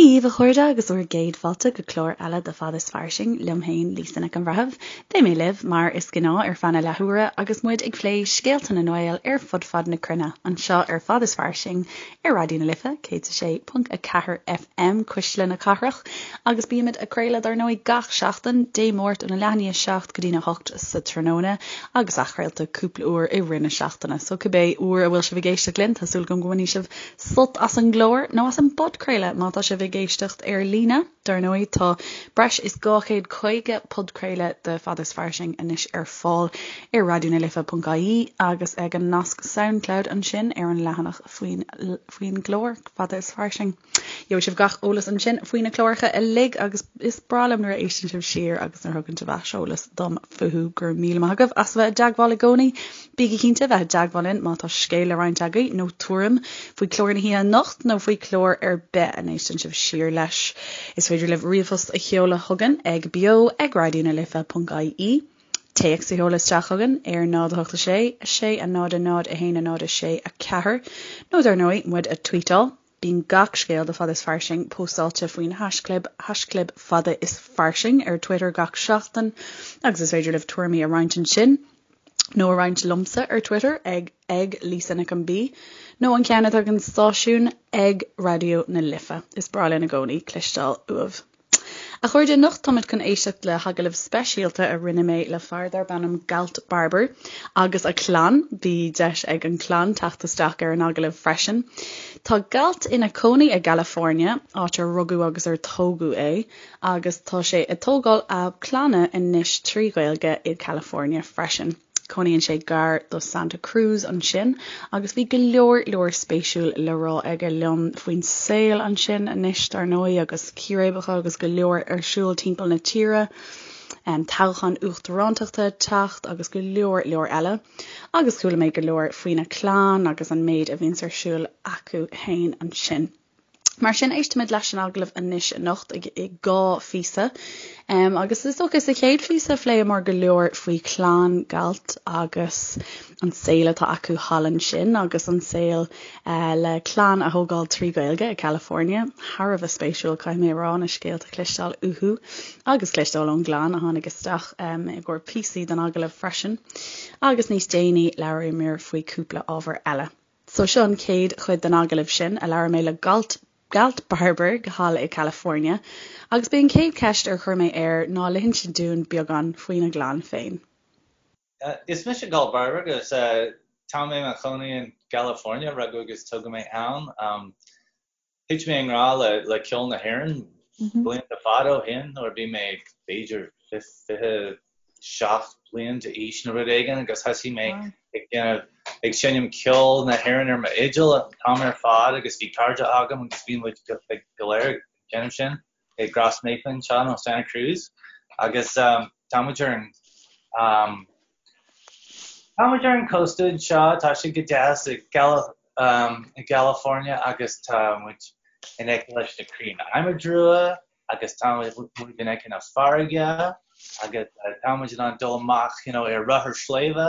Dia dhaoibh, a chairde, agus bhur gcéad fáilte go clár eile de Fada is Fairsing liom féin, Lisa Nic an Bhreithimh. Beidh mé libh, mar is gnáth, ar feadh na leathuaire agus muid ag plé scéalta na nGael ar fud fad na cruinne, anseo ar Fada is Fairsing ar Raidió na Life, 106.4 FM, Cuisle na Cathrach, agus bímid ag craoladh, dar ndóigh, gach seachtain, Dé Máirt óna leath i ndiaidh a 7 go dtína 8 sa tráthnóna, agus athchraolta cúpla uair i rith na seachtaine. So cibé uair a bhfuil sibh ag éisteacht linn, tá súil agam go mbainfidh sibh sult as an gclár, nó as an bpodchraoladh má tá sibh ag éisteacht ar líne. Dar ndóigh, tá breis is 250 podchraoladh de Fada is Fairsing anois ar fáil ar raidionalife.ie agus ag an nasc Soundcloud ansin ar an leathanach faoin faoin gclár, Fada is Fairsing. Gheobhaidh sibh gach eolas ansin faoi na cláracha uilig agus is breá liom nuair a éisteann sibh siar agus nuair a thugann sibh aiseolas dom fúthu. Go raibh míle maith agaibh as a bheith i dteagmháil i gcónaí. Bígí cinnte bheith i dteagmháil linn má tá scéal le roinnt agaibh nó tuairim faoi chlár na hoíche anocht nó faoi chlár ar bith a n-éisteann sibh siar leis. Is féidir libh ríomhphost a sheoladh chugainn ag beo ag raidionalife.ie, téacs a sheoladh isteach chugainn ar 0 8 6 6 0 0 1 0 6 4 nó dar ndóigh muid a tweetáil. Bíonn gach scéal de Fada is Fairsing póstáilte faoin haischlib haischlib Fada is Fairsing ar Twitter gach seachtain agus is féidir libh tuairimí a roinnt ansin nó a roinnt liomsa ar Twitter ag ag Lisa Nic an B nó an ceann atá ag an stáisiún ag Raidió na Life. Is breá linn i gcónaí cloisteáil uaibh. A chairde, anocht táimid chun éisteacht le hagallamh speisialta a rinne mé le fear darb ainm Galt Barber agus a chlann. Bhí deis ag an chlann teacht isteach ar an agallamh freisin. Tá Galt ina chónaí i gCalifornia, áit ar rugadh agus ar tógadh é, agus tá sé ag tógáil a clainne anois trí Ghaeilge i gCalifornia freisin. Cónaíonn sé gar do Santa Cruz ansin agus bhí go leor leor spéisiúil le rá aige liom faoin saol ansin anois dar ndóigh agus círéibeacha agus go leor ar siúl timpeall na tíre, toghchán uachtarántachta ag teacht agus go leor leor eile. Agus chuala mé go leor faoina chlann agus an méid a bhíonns ar siúl acu fhéin ansin. Mar sin, éistfimid leis an agallamh anois anocht i dhá phíosa. Agus is dócha sa chéad phíosa phléamar go leor faoi chlann Galt agus an saol atá acu thall ansin agus an saol le clann a thógáil trí Ghaeilge i California. Thar a bheith spéisiúil, caithfidh mé a rá, na scéalta a chloisteáil uathu agus cloisteáil ón gclann a tháinig isteach i gcomhair píosaí den agallamh freisin. Agus níos déanaí labhraíomar faoi cúpla ábhar eile. So seo an chéad chuid den agallamh sin a labhair mé le Galt, Galt Barber thall i California agus b'é an chéad cheist ar chuir mé air ná le hinsint dúinn beagán faoina gclann féin. Is mise Galt Barber agus tá mé i mo chónaí in gCalifornia, rugadh agus tógadh mé ann. Thit mé i ngrá le ceol na hÉireann blianta fada ó shin nuair a bhí mé b'fhéidir 27 bliain d'aois nó rud éigin agus thosaigh mé ag déanamh, ag seinm ceol na hÉireann ar m'fhidil an t-am ar fad agus bhí cairde agam agus bhí muid go léir ag déanamh sin i gCros Naofa anseo in Santa Cruz agus tá muid ar an tá muid ar an cósta anseo, tá sé go deas i i gCalifornia agus tá muid in aice leis na crainn adhmaid rua agus tá muid in aice na farraige agus tá muid in ann dul amach you know, ar rothar sléibhe,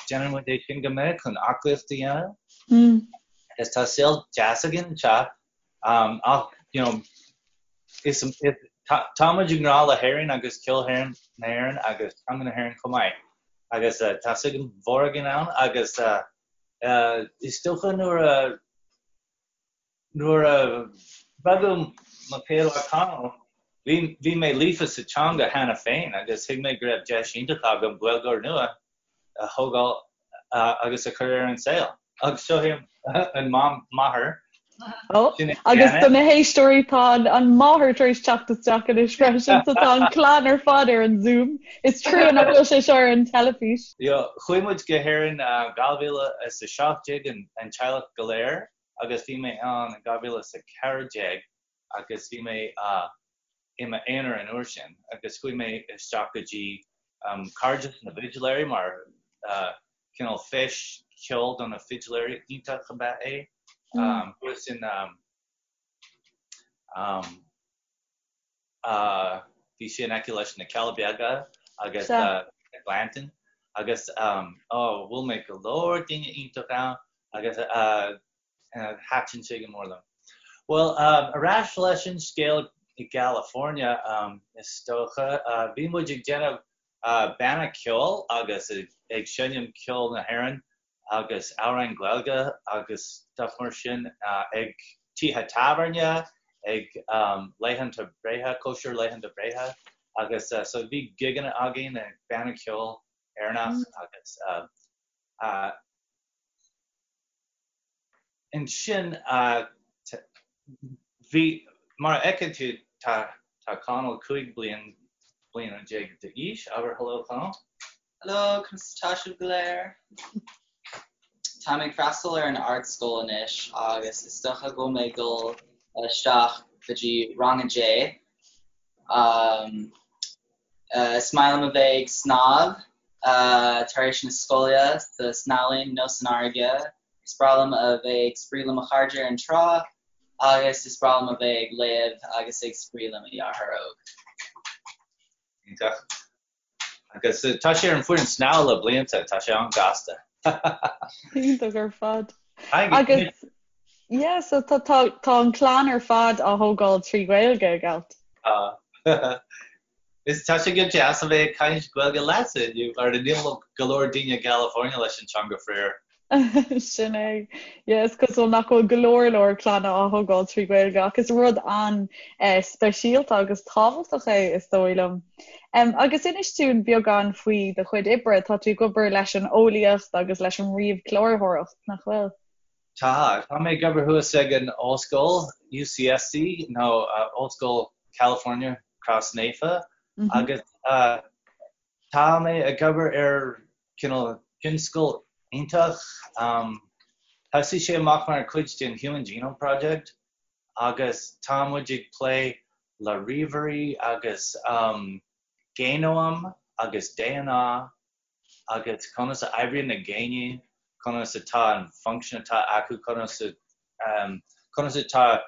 déanann muid é sin go minic chun aclaíocht a dhéanamh. Agus tá saol deas againn anseo ach you know, is, is, tá, tá muid i ngrá le hÉirinn agus ceol hÉireann, na hÉireann agus teanga na hÉireann chomh maith. Agus uh, tá suim mhór againn ann agus uh, Is dócha nuair a nuair a rugadh mo chéad mhac Conall, bhí bhí mé líofa sa teanga cheana féin agus thuig mé go raibh deis iontach agam Gaeilgeoir nua a thógáil agus a chur ar an saol. Agus seo í an máthair. Ó, agus do na héisteoirí tá an máthair tar éis teacht isteach anois freisin, so tá an clann ar fad ar an Zoom. Is trua nach bhfuil sé seo ar an teilifís. Chuaigh muid go hÉirinn 2017 an teaghlach go léir agus bhí mé ann in 2014 agus bhí mé i m'aonar an uair sin agus chuaigh mé isteach go dtí Cairdeas na bhFidléirí mar cineál feis ceoil do na fidléirí iontach ab ea é. Thuas in bhí sé in aice leis na Cealla Beaga agus na Gleanntáin agus ó bhuail mé go leor daoine iontach ann agus thaitin sé go mór liom. Bhuel, ar ais leis an scéal i gCalifornia, is dócha. Bhí muid ag déanamh banna ceoil agus ag seinm ceol na hÉireann agus amhráin Gaeilge agus stuff mar sin ag tithe tábhairne, ag laethanta breithe, cóisir laethanta breithe agus so bhí gigeanna againn ag banna ceoil Éireannach agus Ansin, bhí, mar a fheiceann tú, tá tá Conall 15 bliain bliana d'aois. Abair hello, Conall. Hello, conas atá sibh go léir? Táim ag freastal ar an ardscoil anois agus is dócha go bhfuil mé ag dul isteach go dtí rang a deich. Is maith liom a bheith ag snámh tar éis na scoile sa snámhlann nó san fharraige. Is breá liom a bheith ag spraoi le mo chairde ar an trá agus is breá liom a bheith ag léamh agus ag spraoi le mo dheartháir óg. Iontach. Agus tá sé ar an bhfoireann snámha le blianta, tá sé an-gasta. Iontach ar fad. Agus yeah, so tá tá tá an clann ar fad á thógáil trí Ghaeilge, a Gealt. Tá. Is tá sé go deas a bheith ag caint Gaeilge leatsa inniu, mar níl go leor daoine i gCalifornia leis an teanga faraor. Sin é. Yeah, is cosúil nach bhfuil go leor leor clanna á thógáil trí Ghaeilge ach is rud an-speisialta agus tábhachtach é is dóigh liom. Um, agus inis dúinn beagán faoi do chuid oibre, tá tú ag obair leis an eolaíocht agus leis an ríomhchláraitheoireacht, nach bhfuil? Tá, tá mé ag obair thuas ag an ollscoil UCSC nó uh, Ollscoil California Crois Naofa mm -hmm. agus uh, Tá mé ag obair ar cineál tionscal iontach. Thosaigh sé amach mar chuid den Human Genome Project agus tá muid ag plé le ríomhairí agus géanóim agus DNA agus conas a oibríonn na géiní, conas atá an function atá acu, conas conas atá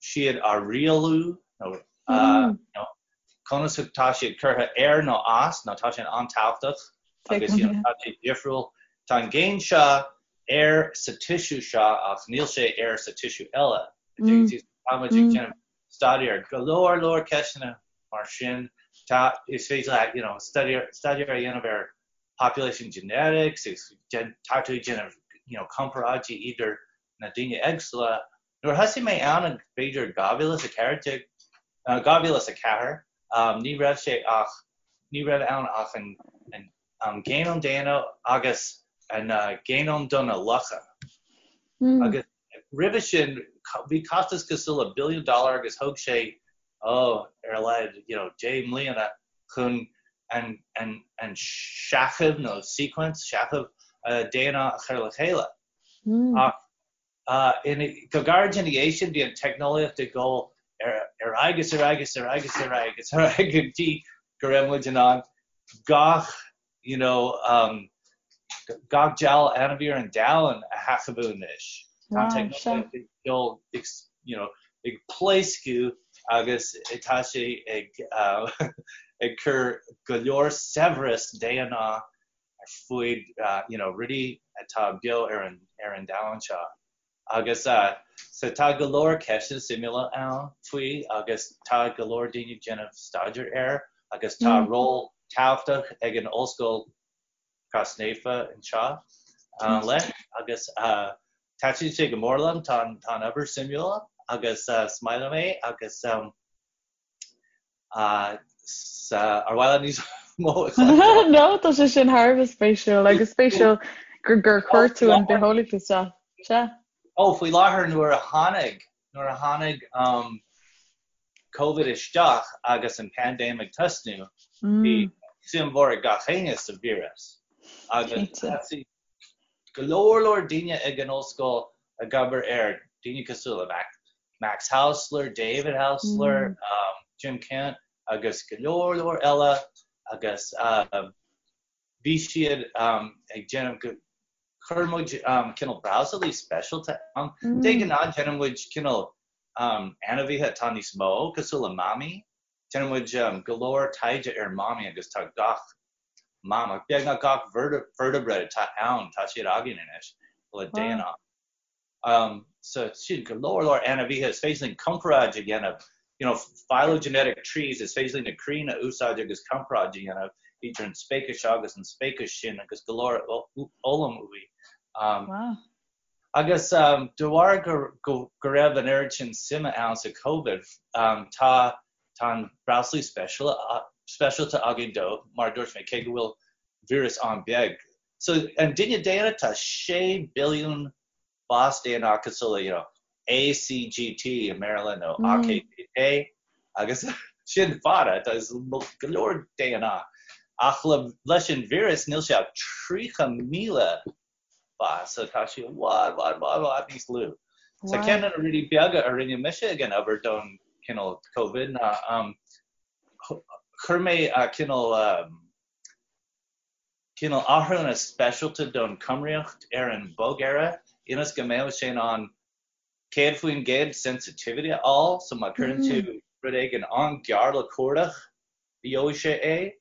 siad á rialú nó conas atá siad curtha ar nó as nó tá sé an-tábhachtach agus you know, tá sé difriúil. Tá an géin seo ar sa tissue seo ach níl sé ar sa tissue eile. Tá muid ag déanamh staidéar go leor leor ceisteanna mar sin tá is féidir leat you know, staidéar staidéar a dhéanamh ar population genetics agus tá tú ag déanamh you know, comparáidí idir na daoine éagsúla Nuair a thosaigh mé ann in b'fhéidir 2014, 2004, ní raibh sé ach, ní raibh ann ach an an géanóm daonna agus an géanóm do na lucha. Agus roimhe sin bhí costas cosúil le billiún dollar agus thóg sé, oh, ar a laghad, you know, 10 mbliana chun an an an seicheamh nó sequence, seicheamh DNA a chur le chéile. Ach Go gairid ina dhiaidh sin, bhí an teicneolaíocht ag dul ar aghaidh is ar aghaidh is ar aghaidh is ar aghaidh is ar aghaidh go dtí go raibh muid in ann gach you know um, gach dealbh ainmhí ar an domhan a sheicheamhú anois. Tá an teicneolaíocht ag dul ag you know, ag pléascadh agus tá sé ag uh, ag cur go leor saibhreas DNA ar fuaid you know rudaí atá beo ar an ar an domhan seo agus so tá go leor ceisteanna suimiúla ann faoi agus tá go leor daoine ag déanamh staidéar air agus tá mm. ról tábhachtach ag an Ollscoil Crois Naofa anseo uh, leis agus uh, taitníonn sé go mór liom tá tá an obair suimiúil agus uh, is maith liom é agus um, Ar mhaith leat níos mó a chloisteáil? No, tá sé sin thar a bheith spéisiúil agus spéisiúil gur gur chuir tú an bitheolaíocht isteach. Sea. Ó, faoi láthair nuair a tháinig, nuair a tháinig um, Covid isteach agus an paindéim ag tosnú, bhí suim mhór ag gach éinne sa víreas. Agus thosaigh go leor leor daoine ag an ollscoil ag obair air, daoine cosúil le Mac, Max Hausler, David Hausler, mm. um, Jim Kent agus go leor leor eile agus um, bhí siad um, ag déanamh go chuir muid um, cineál brabhsálaí speisialta ann. Mm. De ghnáth déanann muid cineál um, ainmhithe atá níos mó cosúil le mamaigh. Déanann muid um, go leor taighde ar mamaigh agus tá gach mamach, beagnach gach vertebrate atá ann, tá siad againn anois le DNA. So sin go leor leor ainmhithe is féidir linn comparáid a dhéanamh, you know, phylogenetic trees, is féidir linn na crainn a úsáid agus comparáid a dhéanamh idir an speiceas seo agus an speiceas sin agus go leor fhoghlaim uaidh. Wow. Agus de bharr go raibh an oiread sin suime ann sa Covid, tá tá an breoslaí speisialta againn dó, mar a dúirt mé, cé go bhfuil víreas an-bheag. So, an duine daonna, tá 6 billiún bás DNA cosúil le, you know, A, C, G, T i mBéarla nó A, K, K, K agus sin fada, tá go leor DNA. Ach le, leis an víreas níl sé ach 30,000 bás, so tá sé i bhfad, bhfad, bhfad, bhfad níos lú. So ceann de na rudaí beaga a rinne mise ag an obair don cineál Covid ná um, chuir mé cineál um, cineál athrúna speisialta don chumraíocht ar an bhogearra ionas go mbeadh sé in ann 100% sensitivity a fháil, so má chuireann tú rud éigin an-ghearr le cuardach, gheobhaidh sé é.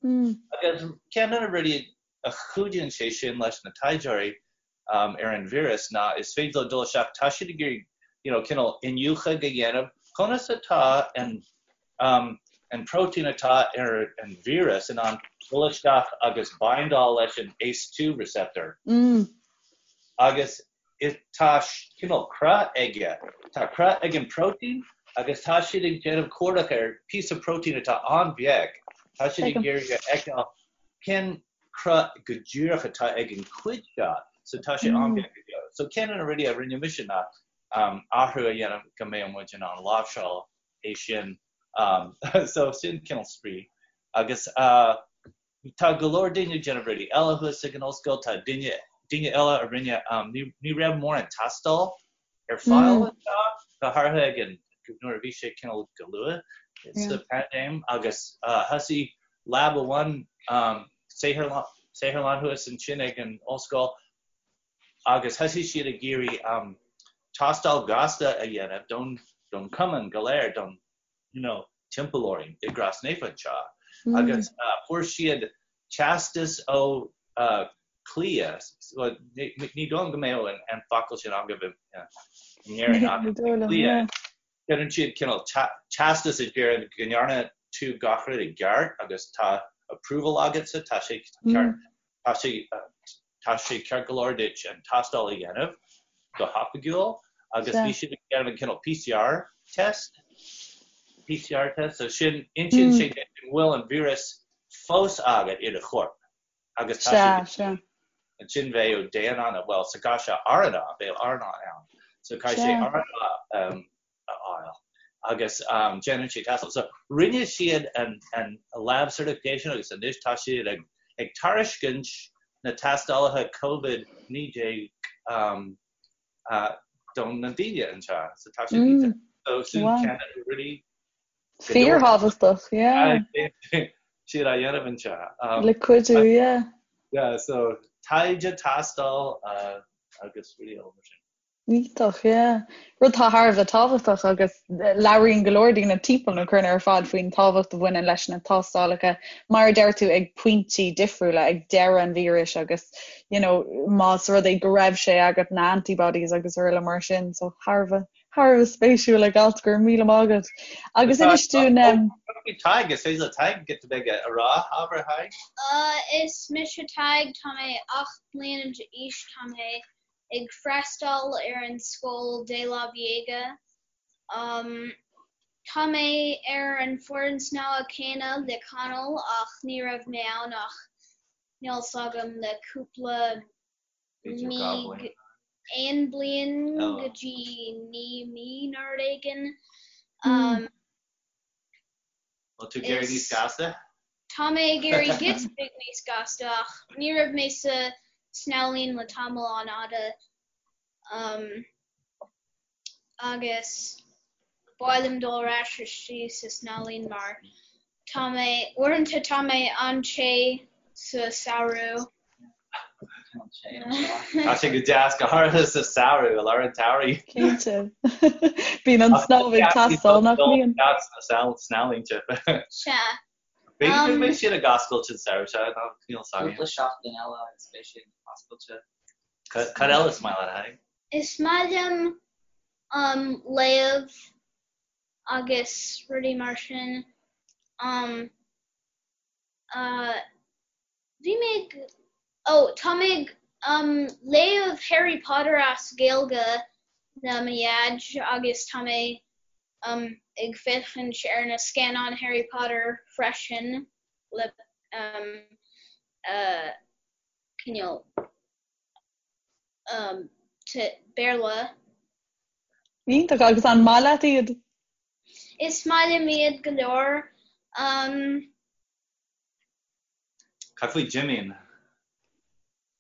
Agus ceann de na rudaí a chuidíonn sé sin leis na taighdeoirí ar an víreas ná is féidir leo dul isteach, tá siad ag iarraidh you know cineál iniúchadh a dhéanamh conas atá an an próitéin atá ar an víreas in ann dul isteach agus bindáil leis an ACE2 receptor. Agus tá cineál cruth aige, tá cruth ag an próitéin agus tá siad ag déanamh cuardach ar píosa próitéin atá an-bheag, tá siad ag iarraidh a fheiceáil cén cruth go díreach atá ag an cuid seo, so tá sé an-bheag go deo. So ceann de na rudaí a rinne mise ná athrú a dhéanamh go mbeadh muid in ann láimhseáil é sin. So sin cineál spraoi. Agus tá go leor daoine ag déanamh rudaí eile thuas ag an ollscoil, tá duine, daoine eile a rinne, ní raibh mórán tástáil ar fáil anseo, go háirithe ag an, nuair a bhí sé cineál go luath sa paindéim agus thosaigh lab amháin, saotharlann thuas ansin ag an ollscoil agus thosaigh siad ag iarraidh tástáil ghasta a dhéanamh don, don chumann go léir, don, you know, timpeall orainn i gCrois Naofa anseo agus fuair siad teastas ó CLIA, ní dóigh liom go mbeadh an focal sin agaibh in Éirinn ach CLIA, déanann siad cineál teastas a deireann go ndearna tú gach rud i gceart agus tá approval agatsa, tá sé ceart, tá sé tá sé ceart go leor duit an tástáil a dhéanamh go hoifigiúil agus bhí siad ag déanamh an cineál PCR test, PCR test, so sin, insíonn sé duit an bhfuil an víreas fós agat i do chorp agus tá sé ansin bheadh DNA nó bhuel sa gcás seo RNA, bheadh RNA ann so caithfidh sé RNA a fháil agus déanann sé tástáil. So rinne siad an an lab certification agus anois tá siad ag ag tairiscint na tástálacha Covid-19 don na daoine anseo so tá sé iontach. So sin ceann de na rudaí Fíorthábhachtach, yeah. Siad á dhéanamh anseo. Le cuidiú, yeah. Yeah, so taighde, tástáil agus rudaí eile mar sin. Iontach, yeah. Rud atá thar a bheith tábhachtach agus labhraíonn go leor daoine timpeall na cruinne ar fad faoin tábhacht a bhaineann leis na tástálacha, mar a deir tú, ag pointí difriúla, ag deireadh an víris agus, you know, más rud é go raibh sé agat, na antibodies agus araile mar sin, so thar a bheith Thar a bheith spéisiúil a Ailt, go raibh míle maith agat. Agus inis dúinn. Tadhg, is féidir le Tadhg giota beag a rá, abair a Thaidhg? Is mise Tadhg, tá mé 8 mbliana d'aois, tá mé ag freastal ar an scoil DeLaveaga. Tá mé ar an foireann snámha céanna le Conall ach ní raibh mé ann ach níl 's agam le cúpla mí, aon bliain go dtí 9 mí nó rud éigin. Bhfuil tú ag éirí níos gasta? Tá mé ag éirí giota beag níos gasta ach ní raibh mé sa snámh le tamall an-fhada. Agus ba mhaith liom dul ar ais istigh sa snámh mar tá mé, uaireanta tá mé an-te sa samhradh. Tá sé go deas, go háirithe sa samhradh, i lár an tsamhraidh. Cinnte. Bíonn an snámh ag teastáil, nach mbíonn? Snámhlínte. Sea. B'fhéidir go mbeidh siad ag oscailt an samhradh seo, níl 's agam. Cúpla seachtain eile agus beidh siad oscailte. Cad eile is maith leat, a Thaidhg? Is maith liom um léamh agus rudaí mar sin. Um uh bhí mé ag oh tá mé ag um léamh Harry Potter as Gaeilge le mo dhaid agus tá mé um ag féachaint ar na scannáin Harry Potter freisin le um uh cineál um Béarla. Iontach, agus an maith leat iad? Is maith liom iad go leor. Um. Cad faoi Jimín?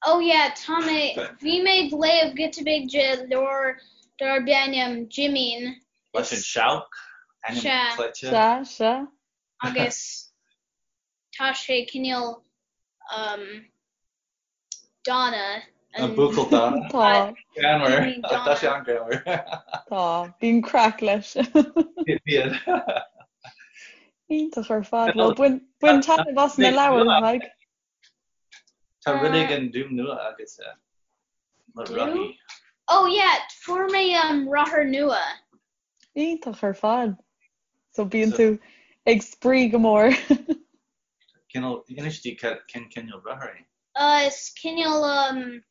Oh yeah, tá mé, bhí mé ag léamh giota beag de leabhar darb ainm Jimín. Leis an seabhac, ainm cleite. Sea, sea. Agus tá sé cineál um, dána. An buachaill dána. Tá. Greannmhar. Tá sé an-ghreannmhar. Tá. Bíonn craic leis. Bíonn. Iontach ar fad. Bhuel, bain, bain taitneamh as na leabhair, Tadhg. Tá rud éigin dúm nua agat le rothaí. Oh yeah, fuair mé um, rothar nua. Iontach ar fad. So bíonn tú ag spraoi go mór. Cineál, inis di cén cineál rothar é? Is cineál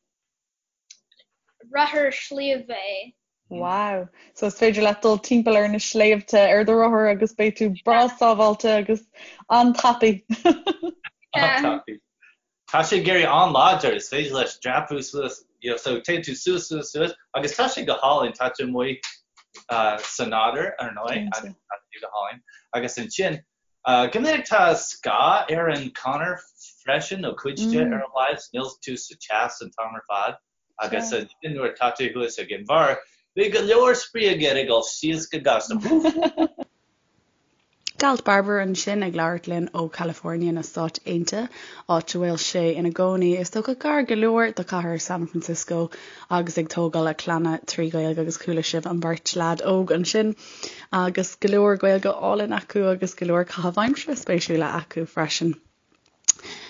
rothar sliabh é. Wow! So is féidir leat dul timpeall ar na sléibhte ar do rothar agus beidh tú breá sábháilte agus an-tapaidh. An-tapaidh. Tá sé ag éirí an-láidir, is féidir leis dreapadh suas, you know, so téann tú suas, suas, suas agus tá sé go hálainn, tá tú amuigh sa nádúr, ar ndóigh, agus tá sé go hálainn. Agus ansin, Go minic tá scáth ar an chonair freisin, nó cuid de ar a laghad, níl tú sa teas an t-am ar fad agus ansin nuair atá tú thuas ag an bharr, bhí go leor spraoi agat ag dul síos go gasta. Galt Barber ansin ag labhairt linn ó California na Stáit Aontaithe, áit a bhfuil sé ina gcónaí, is dócha gar go leor do chathair San Francisco agus ag tógáil a clainne trí Ghaeilge agus chuala sibh an bheirt leaid óg ansin. Agus go leor Gaeilge álainn acu agus go leor caitheamh aimsire spéisiúla acu freisin.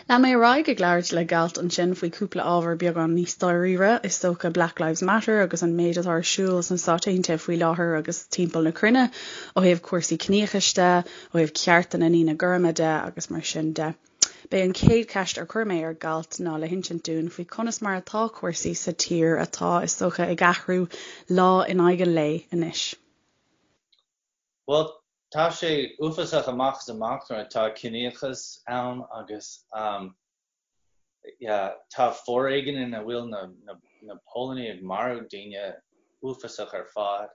Lean mé ar aghaidh ag labhairt le Galt ansin faoi cúpla ábhar beagán níos dáiríre, is dócha Black Lives Matter agus an méid atá ar siúl sna Stáit Aontaithe faoi láthair agus timpeall na cruinne ó thaobh cúrsaí ciníochais de, ó thaobh cearta na ndaoine gorma de agus mar sin de. B'é an chéad cheist ar chuir mé ar Galt ná le hinsint dúinn faoi conas mar atá cúrsaí sa tír atá, is dócha, ag athrú lá in aghaidh an lae anois. Bhuel, tá sé uafásach amach is amach nuair atá ciníochas ann agus yeah, tá foréigean ina bhfuil na, na, na póilíní ag marú daoine uafásach ar fad.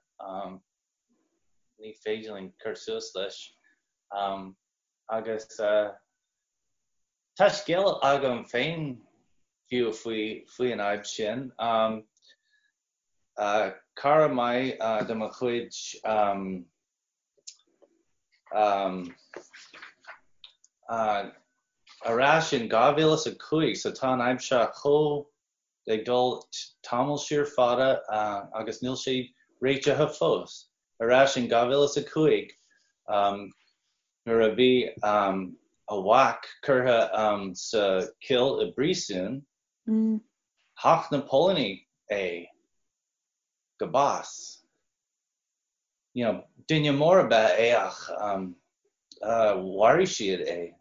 Ní féidir linn cur suas leis. Agus tá scéal agam féin fiú faoi faoi an fhadhb sin. Cara maith de mo chuid ar ais in 2005, so tá an fhadhb seo chomh ag dul tamall siar fada agus níl sé réitithe fós. Ar ais in 2005 nuair a bhí a mhac curtha sa chill i bpríosún, thacht na póilíní é go bás. You know, duine mór ab ea é ach mharaigh siad é.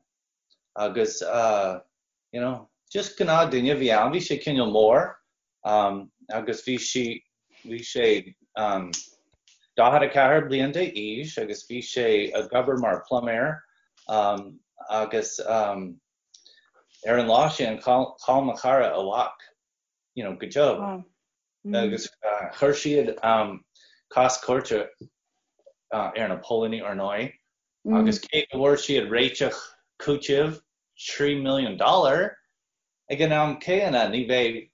Agus you know, just gnáth duine a bhí ann, bhí sé cineál mór agus bhí sí, bhí sé 44 bliain d'aois agus bhí sé ag obair mar pluiméir agus ar an lá sin chaill mo chara a mhac, you know, go deo. Agus chuir siad cás cúirte ar na póilíní ar ndóigh agus cé go bhfuair siad réiteach cúitimh 3 milliún dollar, ag an am céanna ní bheidh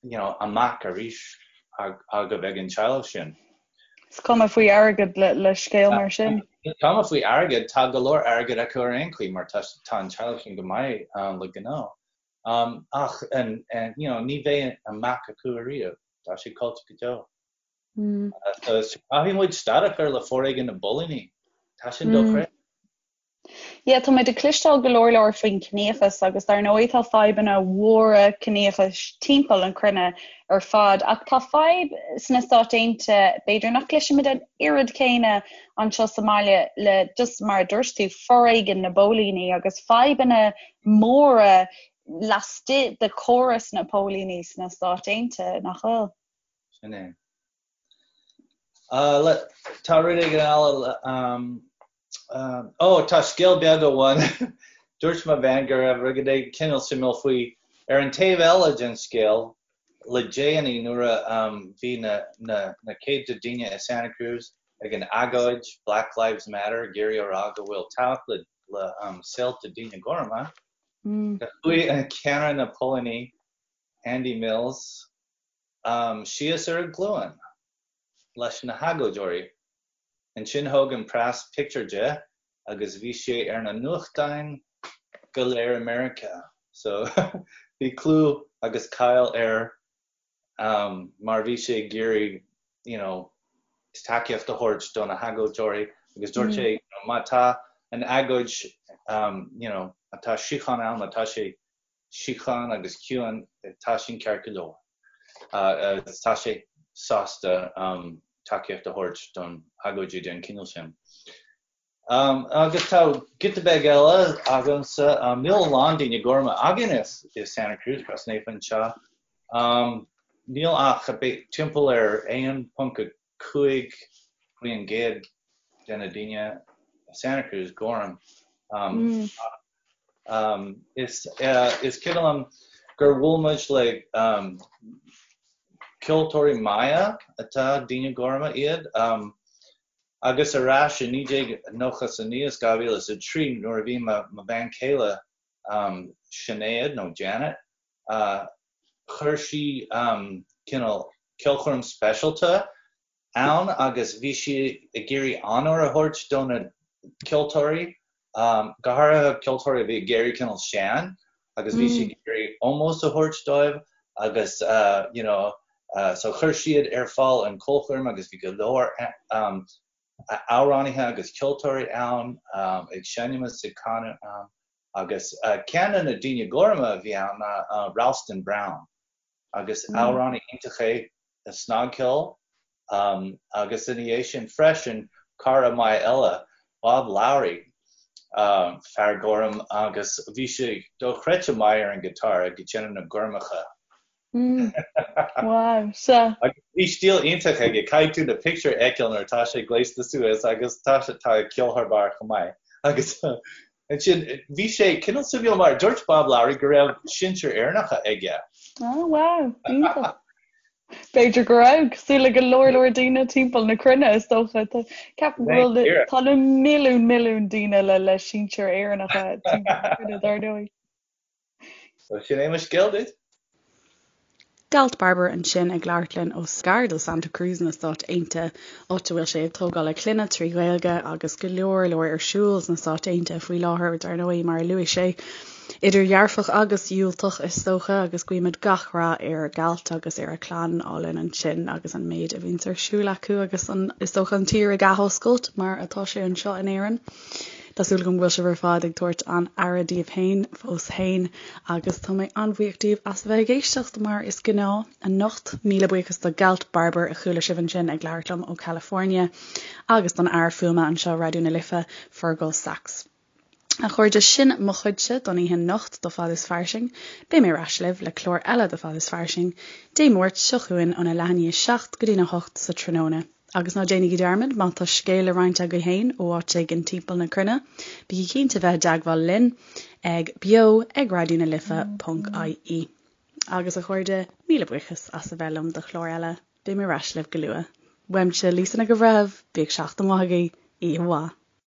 you know, a mac arís agaibh ag an teaghlach sin. Is cuma faoi airgead le scéal mar sin. Is cuma faoi airgead, tá go leor airgid acu ar aon chaoi mar tá an teaghlach sin go maith le gnó. Ach you know, ní bheidh a mac acu ariamh, tá sé caillte go deo. So caithfidh muid stad a chur le foréigean na bpóilíní. Tá sin dochreidte. Yeah, tá muid ag cloisteáil go leor leor faoin ciníochas agus dar ndóigh tá fadhbanna mhóra ciníochais timpeall an cruinne ar fad ach tá fadhb sna Stáit Aontaithe b'fhéidir nach gcloisimid an oiread céanna anseo sa mbaile le just mar a dúirt tú foréigean na bpóilíní agus fadhbanna móra laistigh de chóras na póilíní sna Stáit Aontaithe, nach bhfuil? Sin é. Tá rud éigin eile Ó, tá scéal beag amháin. Dúirt mo bhean go raibh rud éigin cineál suimiúil faoi. Ar an taobh eile den scéal, le déanaí nuair a bhí na céadta daoine i Santa Cruz ag an agóid Black Lives Matter ag iarraidh a rá go bhfuil tábhacht le saolta daoine gorma, chuaigh an ceannaire na póilíní, Andy Mills, síos ar a ghlúin leis na hagóideoirí. Ansin thóg an preas pictiúr de agus bhí sé ar na nuachtáin go léir i Meiriceá. So bhí clú agus cáil air mar bhí sé ag iarraidh you know tacaíocht a thabhairt do na hagóideoirí agus dúirt sé you know má tá an agóid you know má tá síocháin ann, má tá sé síocháin agus ciúin, tá sin ceart go leor. Tá sé sásta tacaíocht a thabhairt don agóidí den chineál sin. Agus tá giota beag eile agamsa, níl a lán daoine gorma againn i Santa Cruz, Crois Naofa anseo. Níl ach timpeall ar 1.5% de na daoine i Santa Cruz gorm. Is cuimhin liom gur bhuail muid le ceoltóirí maithe atá daoine gorma iad agus ar ais i 1999 is 2003 nuair a bhí mo bhean chéile Sinéad nó Janet chuir sí cineál ceolchoirm speisialta ann agus bhí sí ag iarraidh onóir a thabhairt do na ceoltóirí, go háirithe ceoltóirí a bhí ag éirí cineál sean agus bhí sí ag iarraidh ómós a thabhairt dóibh agus you know so chuir siad ar fáil an ceolchoirm agus bhí go leor amhránaithe agus ceoltóirí ann ag seinm is ag canadh ann agus ceann de na daoine gorma a bhí ann ná Ralston Brown. agus amhránaí iontach é i snagcheol agus ina dhiaidh sin freisin cara maith eile, Bob Lowry, fear gorm agus bhí sé dochreidte maith ar an guitar ag déanamh na gormacha. Wow, sea. Agus bhí stíl iontach aige, caithfidh tú na pictiúir a fheiceáil nuair atá sé gléasta suas agus tá sé tá ag ceol thar barr chomh maith agus Ansin, bhí sé cineál suimiúil mar dúirt Bob Lowry go raibh sinsir Éireannacha aige. Oh wow, iontach. B'fhéidir go raibh, cosúil le go leor leor daoine timpeall na cruinne is dócha. Ceapaim go bhfuil tá na milliún milliún daoine le le sinsir Éireannacha timpeall na cruinne dar ndóigh. So sin é mo scéal duit. Galt Barber ansin ag labhairt linn ó gar do Santa Cruz na Stáit Aontaithe, áit a bhfuil sé ag tógáil a clainne trí Ghaeilge agus go leor leor ar siúl sna Stáit Aontaithe faoi láthair, dar ndóigh, mar a luaigh sé, idir dhearfach agus dhiúltach is dócha, agus guímid gach rath ar Galt agus ar a chlann álainn ansin agus an méid a bhíonns ar siúl acu agus an, is dócha, an tír ag athoscailt mar atá sé anseo in Éirinn. Tá súil agam go bhfuil sibh ar fad ag tabhairt an-aire daoibh féin fós féin agus tá mé an-bhuíoch díobh as a bheith ag éisteacht mar is gnáth anocht. Míle buíochas do Galt Barber a chuala sibh ansin ag labhairt liom ó California agus don fhear fuaime anseo Raidió na Life, Fergal Sachs. A chairde, sin mo chuidse don oíche anocht do Fad is Fairsing. Beidh mé ar ais libh le clár eile de Fad is Fairsing Dé Máirt seo chugainn óna leath i ndiaidh 7 go dtína 8 sa tráthnóna. Agus ná déanaigí dearmad, má tá scéal le roinnt agaibh féin ó áit éigin timpeall na cruinne, bígí cinnte bheith i dteagmháil linn ag beo ag raidió na life ponc ie. Agus a chairde, míle buíochas as a bheith liom do chlár eile, beidh mé ar ais libh go luath. Uaimse, Lisa Nic an Bhreithimh, bíodh seachtain mhaith agaibh, oíche mhaith.